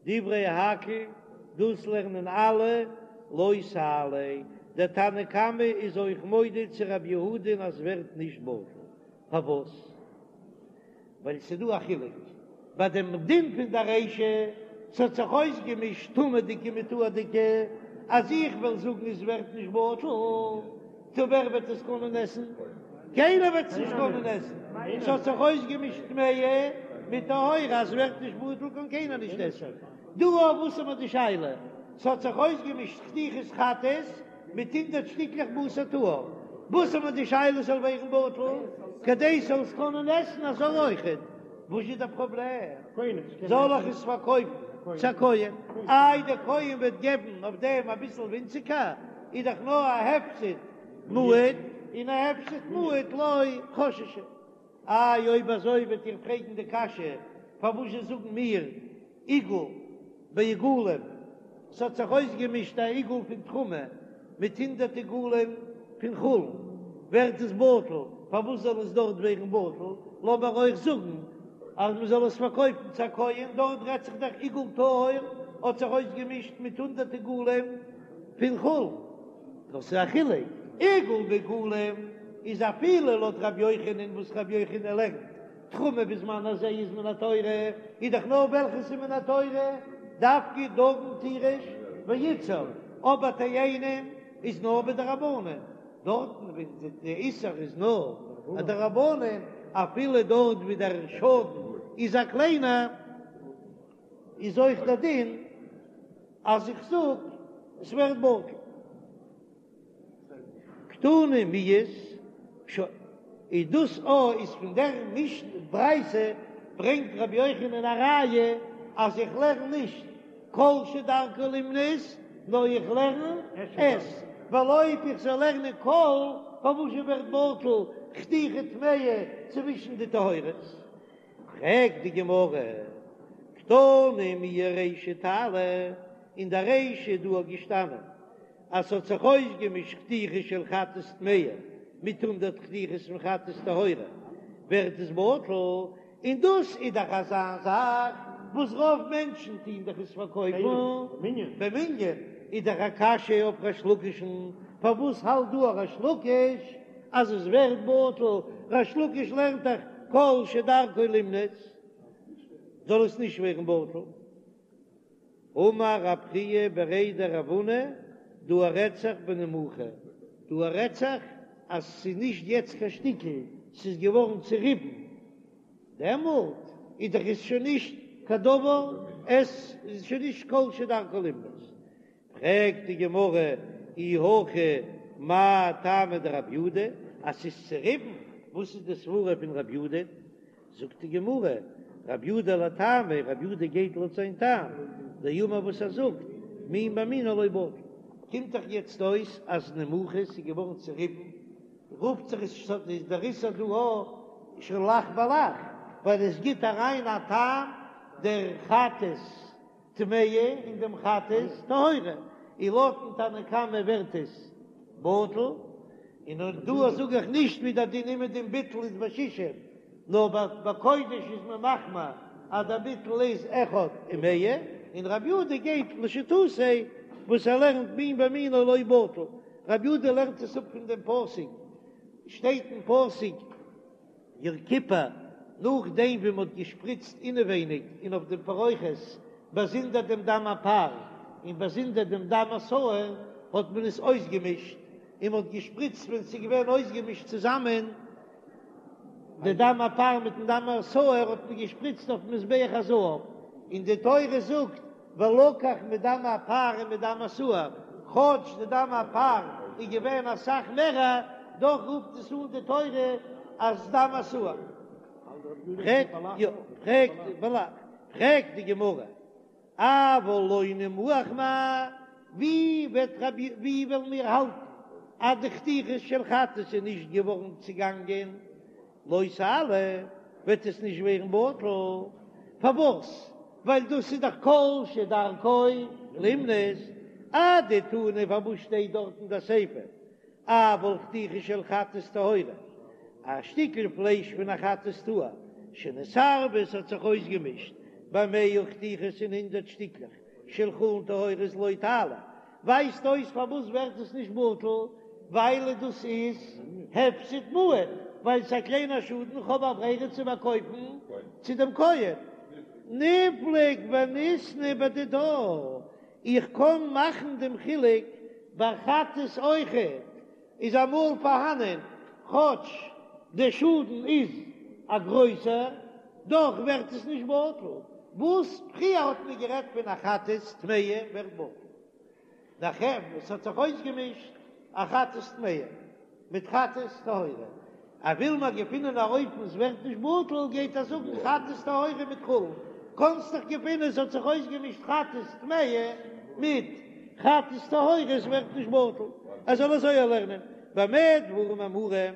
דברי הכל, דאס לערנען אלע, לא תעלה, דער תנא קמא איז אויך מודה צו רבי יהודה'ן אז ווערט נישט בטל, פארוואס? ווייל ס'איז דא א חילוק ביי דעם דין פון די רישא, ס'האט זיך אויסגעמישט טמא'דיגע מיט טהור'דיגע, אז איך וועל זאגן עס ווערט נישט בטל, טא ווער וועט עס קענען עסן? קיינער וועט עס נישט קענען עסן, ס'האט זיך אויסגעמישט טמאה מיט טהורה, אז ס'ווערט נישט בטל קען קיינער נישט עסן. דא אויף וואס האט מען די שאלה? ס'האט זיך אויסגעמישט חתיכת חטאת מיט הונדרעט שטיקלעך בשר טהור, וואס האט מען די שאלה ס'זאל ווערן בטל כדי ס'זאל עס קענען עסן א זר אויכעט? וואס איז דער פראבלעם? זאל איך עס פארקויפן צו א כהן? איי דער כהן וועט געבן אויף דעם אביסל ווינציגער, איז דאך נאר א הפסד מועט, און א הפסד מועט לא חששו. איי אויב אזוי וועט איר פרעגן די קשיא, פארוואזשע זאגן מיר עיגול בעיגולים? ס'האט זיך אויסגעמישט א עיגול פון תרומה מיט הונדרעט עיגולים פון חולין, ווערט עס בטל, פארוואס זאל עס דארט ווערן בטל? לאמיר אויך זאגן אז מען זאל עס פארקויפן צו א כהן, דארט רעדט זיך דאך עיגול טהור האט זיך אויסגעמישט מיט הונדרעט עיגולים פון חולין, נאר ס'איז א חילוק, עיגול בעיגולים איז אפילו לויט רבי יוחנן וואס רבי יוחנן לערנט תרומה בזמן הזה איז מן התורה, איז דאך נאר וועלכעס איז מן התורה, דווקא דגן תירוש ויצהר, אבער תאנים איז נאר בדרבנן, דארטן ווי די איסור איז נאר א דרבנן, אפילו דארט ווי דער שאדן איז א קליינער, איז אויך דער דין אז איך זאג עס ווערט בטל. קתני מיהת, שוין, איז דאס א איז פון דער משנה ברייתא ברענגט רבי יוחנן א ראיה אז איך לערן נישט כל שדרכו לימנות נאר איך לערן את, ווייל אויב איך זאל לערנען כל פארוואס זשע ווערט בטל חתיכה טמאה צווישן די טהורות? פרעגט די גמרא, קתני מיהא רישא תעלה, אין די רישא איז דא געשטאנען אז ס'האט זיך אויסגעמישט חתיכה של חטאת טמאה מיט הונדרעט חתיכות פון חטאת טהורה, ווערט עס בטל, און דאס איז דאך אזא זאך וואס רוב מענטשן טוהן דאך עס פארקויפן במנין, איז דאך א קשיא אויף ריש לקיש'ן, פארוואס האלט דא ריש לקיש אז עס ווערט בטל, ריש לקיש לערנט דאך כל שדרכו לימנות זאל עס נישט ווערן בטל. אמר רב חייא בריה דרב הונא, דא רעדט זיך בנימוחה, דא רעדט זיך אז ס'איז נישט יעצט קיין שטיקל, ס'איז געווארן צוריבן, דעמאלט איז דאך עס שוין נישט קיין דבר, עס איז שוין נישט כל שדרכו לימנות. פרעגט די גמרא אי הכי מאי טעמא דרב יהודה, אז ס'איז צוריבן, וואס איז די סברה פון רב יהודה? זאגט די גמרא, רב יהודה לטעמיה, רב יהודה גייט לויט זיין טעם, דאמר וואס ער זאגט, מין במינו לא בטל. קומט דאך יעצט אויס אז נימוחה איז געווארן צוריבן, רופט זיך עס איז דער איסור דא א שוין לח בלח, ווייל עס גיט אריין א טעם דער חטאת טמאה אין דעם חטאת טהורה, און לויטן תנא קמא ווערט עס בטל, און אויך דא זאג איך נישט ווי דער דין אומעדום ביטול איז בשישים, נאר ביי קודש איז מען מחמיר אז דער ביטול איז אחד ומאה, און רבי יהודה גייט לשיטתו וואס ער לערנט מין במינו לא בטל, רבי יהודה לערנט עס אפ פון דעם פסוק, שטייט אין פסוק. יום כיפור, נאכדעם ווי מ'האט געשפריצט אינעווייניג און אויף דעם פרוכת באזונדער דעם דם הפר און באזונדער דעם דם השעיר, האט מען עס אויסגעמישט און מ'האט געשפריצט ווען ס'איז געווען אויסגעמישט צוזאמען די דם הפר מיטן דם השעיר האט מען געשפריצט אויפן מזבח הזהב, און די תורה זאגט ולקח מדם הפר ומדם השעיר, כאטש די דם הפר איז געווען אסאך מערער, דאך רופט עס אן די תורה אז דם השעיר. פרעגט די גמרא, אבל לא נימוח מאי, ווי וועט רבי ווי וועלן מיר האלטן אז די חתיכות של חטאת איז נישט געווארן צעגאנגען לא תעלה, וועט עס נישט ווערן בטל, פארוואס? ווייל דאס איז דאך כל שדרכו לימנות, אדתני פארוואס שטייט דארט אין די סיפא אבל חתיכה של חטאת טהורה, א שטיקל פלייש פון א חטאת טהור שנתערבה עס האט זיך אויסגעמישט במאה חתיכות אין הונדרעט שטיקלעך של חולין טהורות לא תעלה, ווייזט אויס פארוואס ווערט עס נישט בטל, ווייל דאס איז הפסד מועט, ווייל ס'איז א קליינער שאדן, איך האב א ברירה צו פארקויפן צו דעם כהן. ניפלוג וניתני בדידה, איך קען מאכן דעם חילוק ביי חטאת אויכעט, איז אמאל פארהאנען כאטש דער שאדן איז א גרויסער, דאך ווערט עס נישט בטל, וואס פריער האט מען גערעדט פון א חטאת טמאה ווערט בטל, נאכער וואס האט זיך אויסגעמישט א חטאת טמאה מיט חטאת טהורה, אז וויל מען געפינען א אופן עס ווערט נישט בטל, גייט ער זאגן חטאת טהורה מיט חולין, קאנסט דאך געפינען עס האט זיך אויסגעמישט חטאת טמאה מיט חטאת טהורה עס ווערט נישט בטל, ער זאל אזוי לערנען במה דברים אמורים,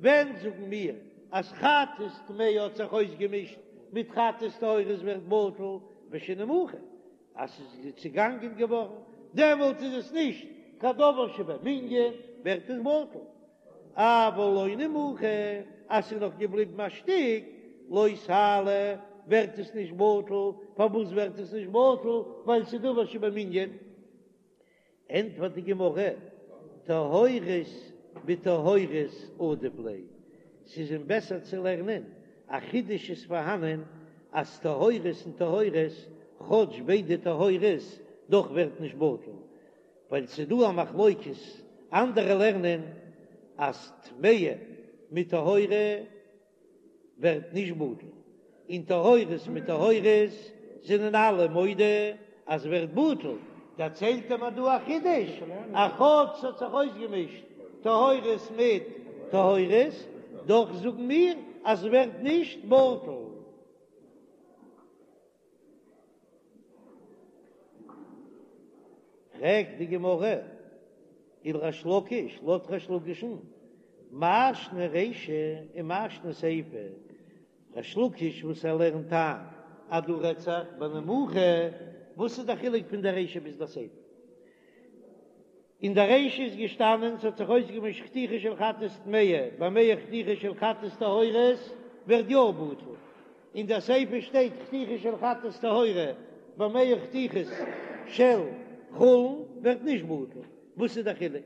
ווען זאגן מיר אז חטאת טמאה האט זיך אויסגעמישט מיט חטאת טהורה עס ווערט בטל בשנימוחה? אז ס'איז צעגאנגען געווארן, דעמאלט איז עס נישט קיין דבר שבמנין, ווערט עס בטל. אבל לא נימוחה, אז ס'איז נאך געבליבן א שטיק, לא תעלה, ווערט עס נישט בטל. פארוואס ווערט עס נישט בטל? ווייל ס'איז דבר שבמנין. ענטפערט די גמרא, טהורות בטהורות עדיף ליה, ס'איז אים בעסער צו לערנען, א חידוש איז פארהאנען אז טהורות און טהורות, כאטש ביידע טהורות, דאך ווערט נישט בטל, ווייל ס'איז דא א מחלוקת, אנדערע לערנען אז טמאה מיט טהורה ווערט נישט בטל, און טהורות מיט טהורות זענען אלע מודה אז ווערט בטל, דערציילט ער מיר דא א חידוש, אז כאטש ס'האט זיך אויסגעמישט טהורות מיט טהורות, דאך זאגן מיר אז ווערט נישט בטל. פרעגט די גמרא, ולריש לקיש, לויט ריש לקיש'ן, מאי שנא רישא ומאי שנא סיפא, ריש לקיש וואס ער לערנט איין אז דא רעדט זיך בנימוחה, וואס איז די חילוק פון די רישא ביז די סיפא? אין די רישא איז געשטאנען ס'האט זיך אויסגעמישט חתיכה של חטאת טמאה במאה חתיכה של חטאת טהורות ווערט יא בטל, אין די סיפא שטייט חתיכה של חטאת טהורה במאה חתיכות של חולין ווערט נישט בטל, וואס איז די חילוק?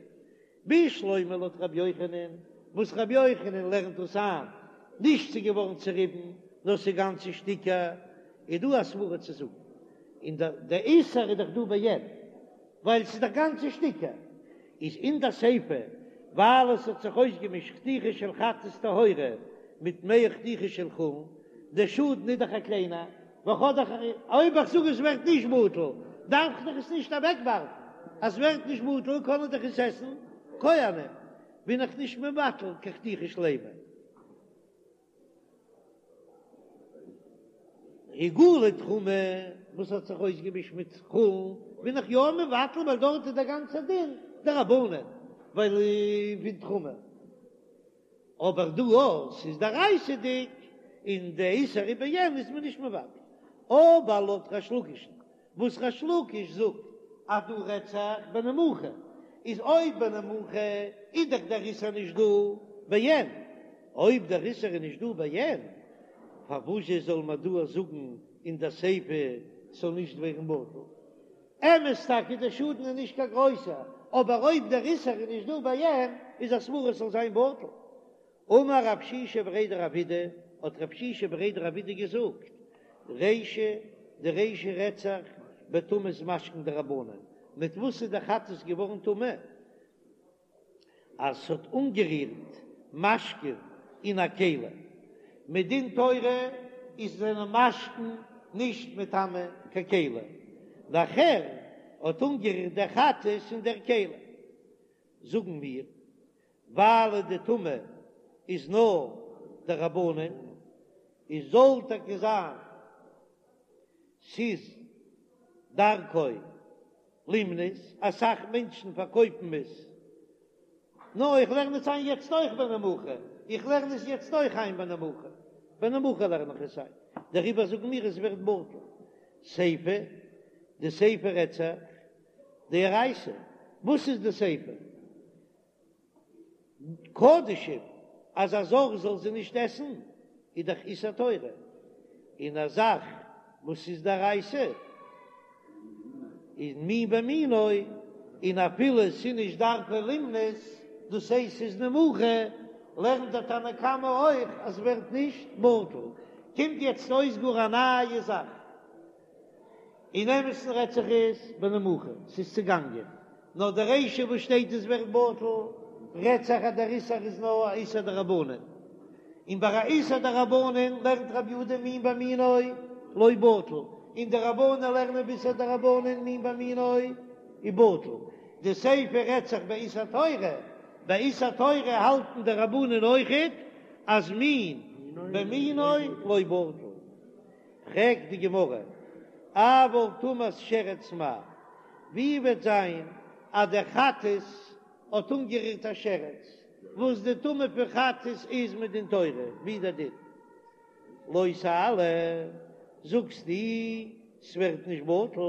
בשלמא לויט רבי יוחנן, וואס רבי יוחנן לערנט דאס איין, נישט ס'איז געווארן צוריבן נאר ס'איז גאנצע שטיקער, איז דא א סברא צו זאגן, און די איסור איז דאך דא בעין. ווייל ס'איז דאך גאנצע שטיקער, איז אין די סיפא ווייל עס האט זיך אויסגעמישט חתיכה של חטאת טהורה מיט מאה חתיכה של חולין, די שאדן איז דאך א קליינער, וכ'האב דאך אויב איך זאג עס ווערט נישט בטל דארף איך דאך עס נישט אוועקווארפן, אז ס'ווערט נישט בטל קענען דאך עס עסן כהנים, בין איך נישט מבטל קיין חתיכה שלימה. עיגולי תרומה וואס האט זיך אויסגעמישט מיט חולין בין איך יא מבטל ווייל דארט איז דער גאנצער דין דרבנן ווייל פון תרומה, אבער דא אויב ס'איז דאורייתא'דיג און די איסור איז בעין איז מען נישט מבטל, אבער לויט ריש לקיש'ן וואס ריש לקיש זאגט אז דא רעדט זיך בנימוחה, איז אויב בנימוחה איז דאך דער איסור נישט דא בעין, אויב דער איסור איז נישט דא בעין, פארוואזשע זאל מען דא זאגן אין דער סיפא ס'זאל נישט ווערן בטל? אמת טאקע דער שאדן איז נישט קיין גרויסער, אבער אויב דער איסור איז נישט דא בעין איז א סברא ס'זאל זיין בטל. אמר רב שישא בריה דרב אידי, האט רב שישא בריה דרב אידי געזאגט, רישא, די רישא רעדט זיך בטומאת משקין דרבנן, מיט וואס איז די חטאת געווארן טמא? אז ס'האט אנגערירט משקין אין א כלי, מדין תורה איז זענען משקין נישט מטמא קיין כלי, נאכער האט אנגערירט דער חטאת אין דער כלי, זאגן מיר ווייל די טומאה איז נאר דרבנן, איז זאל טאקע זיין ס'איז דרכו לימנות, אסאך מענטשן פארקויפן עס, נאר איך לערן עס איין יעצט אויך בנימוחה, איך לערן עס יעצט אויך איין בנימוחה, בנימוחה לערן איך עס איין, דעריבער זאגן מיר עס ווערט בטל, סיפא, די סיפא רעדט זיך דאורייתא, וואס איז די סיפא? קדשים אז א זר זאל זי נישט עסן איז דאך איסור תורה, און א זאך וואס איז דאורייתא איז מין במינו, און אפילו ס'איז נישט דרכו לימנות, דאס הייסט ס'איז נימוחה, לערנט דער תנא קמא אויך אז ס'ווערט נישט בטל. קומט יעצט אויס גאר א נייע זאך. אין אמת'ן רעדט זיך עס בנימוחה, ס'איז צעגאנגען, נאר די רישא וואס שטייט עס ווערט בטל, רעדט זיך אז דער איסור איז נאר א איסור דרבנן, און ביי א איסור דרבנן לערנט רבי יהודה מין במינו לא בטל, און די רבנן לערנען באיסור דרבנן מין במינו איז בטל, די סיפא רעדט זיך באיסור תורה, ביי איסור תורה האלטן די רבנן אויכעט אז מין במינו לא בטל. פרעגט די גמרא, אבל טומאת שרץ מאי, ווי וועט זיין אז דער חטאת האט אנגערירט א שרץ, וואס די טומאה פון חטאת איז מדין תורה, ווי דער דין? לא תעלה, זאגסטו. ס'ווערט נישט בטל,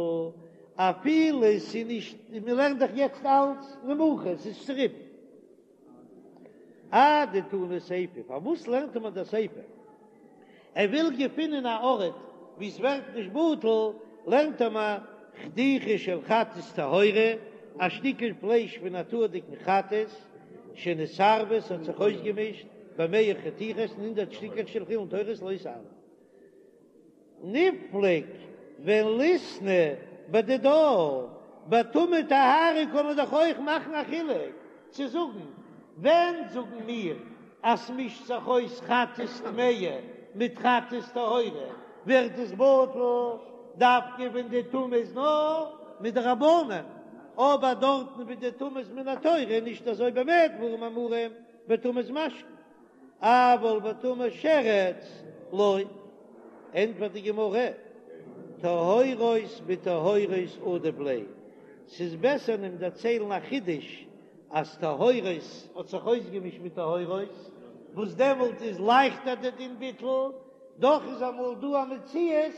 אפילו ס'איז נישט, מ'לערנט דאך יעצט אלץ נמוכה, ס'איז צוריבן. אדתני סיפא, פארוואס לערנט מען די סיפא? ער וויל געפינען א ארט וואו ס'ווערט נישט בטל, לערנט ער מיר חתיכה של חטאת טהורה, א שטיקל פלייש פון א טהור'דיגן חטאת, שנתערבה, ס'האט זיך אויסגעמישט במאה חתיכות אין הונדרעט שטיקלעך של חולין טהורות לא תעלה. ניפלוג וליתני בדידה, ביי טומאה טהרה קען מען דאך אויך מאכן א חילוק צו זאגן, ווען זאגן מיר אז ס'מישט זיך אויס חטאת טמאה מיט חטאת טהורה ווערט עס בטל דווקא ווען די טומאה איז נאר מדרבנן, אבער דארטן ווי די טומאה איז מן התורה איז נישט אזוי במה דברים אמורים בטומאת משקין. אבל בטומאת שרץ לא, ענטפערט די גמרא, טהורות בטהורות עדיף ליה, ס'איז בעסער אים דערציילן א חידוש אז טהורות האט זיך אויסגעמישט מיט טהורות, וואס דעמאלט איז לייכטער די דין ביטול, דאך איז אמאל דא א מציאות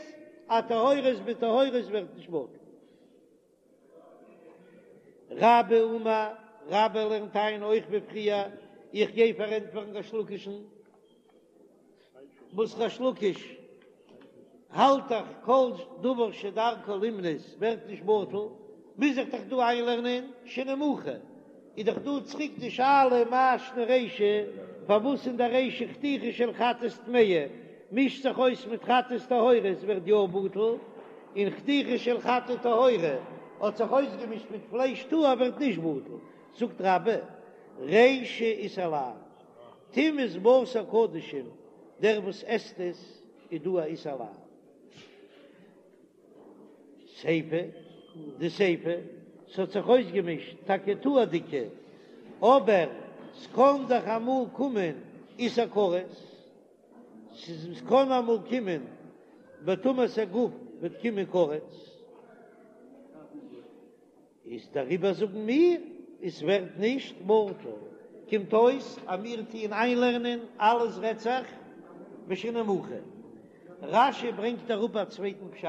אז טהורות בטהורות ווערט נישט בטל. רבה אמר, רבה לערנט איין אויך ווי פריער, איך גיי פארענטפערן ריש לקיש'ן, וואס ריש לקיש האלט דאך כל דבר שדרכו לימנות ווערט נישט בטל, מוז איך דאך דא איינלערנען שנמוכה, איז דאך דא צוריק די שאלה מאי שנא רישא, פארוואס אין די רישא חתיכה של חטאת טמאה מישט זיך אויס מיט חטאת טהורה עס ווערט יא בטל, און חתיכה של חטאת טהורה האט זיך אויסגעמישט מיט פלייש טהור ווערט נישט בטל, זאגט רבה, רישא איסור לאו, טומאת בשר קדשים, דער וואס עסט עס איז דא א איסור לאו. סיפא, די סיפא, ס'האט זיך אויסגעמישט טאקע טהור'דיגע, אבער ס'קען דאך אמאל קומען איסור כרת, ס'קען אמאל קומען בטומאת הגוף וועט קומען כרת. איז דעריבער זאגן מיר עס ווערט נישט בטל, קומט אויס אז מיר טוען איינלערנען אלעס רעדט זיך בשנמוכה. רש"י ברענגט אראפ א צווייטן פשט,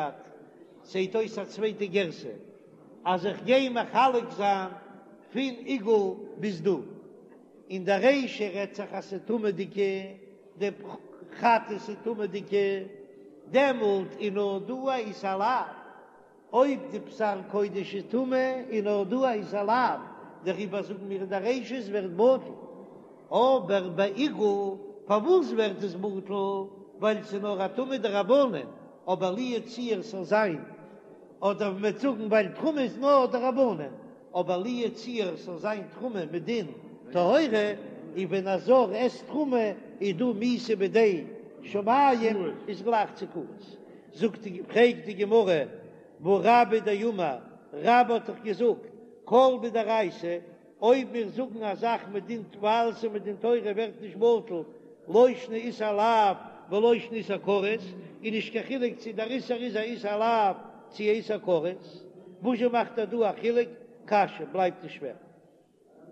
זעט אויס א צווייטע גירסא, אז איך גיי מחלק זיין פון עיגול ביז דא, אין די רישא רעדט זיך אז ס'איז טמא'דיגע, די חטאת איז טמא'דיגע, דעמאלט איז נאר דא א איסור לאו. אויב די בשר קודש איז טמא איז נאר דא א איסור לאו, דעריבער זאגן מיר אין די רישא עס ווערט בטל, אבער ביי עיגול פארוואס ווערט עס בטל? ווייל ס'איז נאר א טומאה דרבנן, אבער לו יצוייר ס'זאל זיין, אדער מ'וועט זאגן ווייל תרומה איז נאר דרבנן, אבער לו יצוייר ס'זאל זיין תרומה מדין טהורה, און ווען א זר עסט תרומה איז דא מיתה בידי שמים איז גלייך צו כרת. זאגט די, פרעגט די גמרא, והא רבה דאמר, רבה האט דאך געזאגט, כל מדאורייתא, אויב מיר זאגן א זאך מדין ווייל ס'איז מדין תורה ווערט נישט בטל, לא שנא איסור לאו ולא שנא איסור כרת, איז נישט קיין חילוק צו דער איסור איז א איסור לאו צו א איסור כרת, וואזשע מאכט ער דא א חילוק? קשיא, בלייבט עס שווער.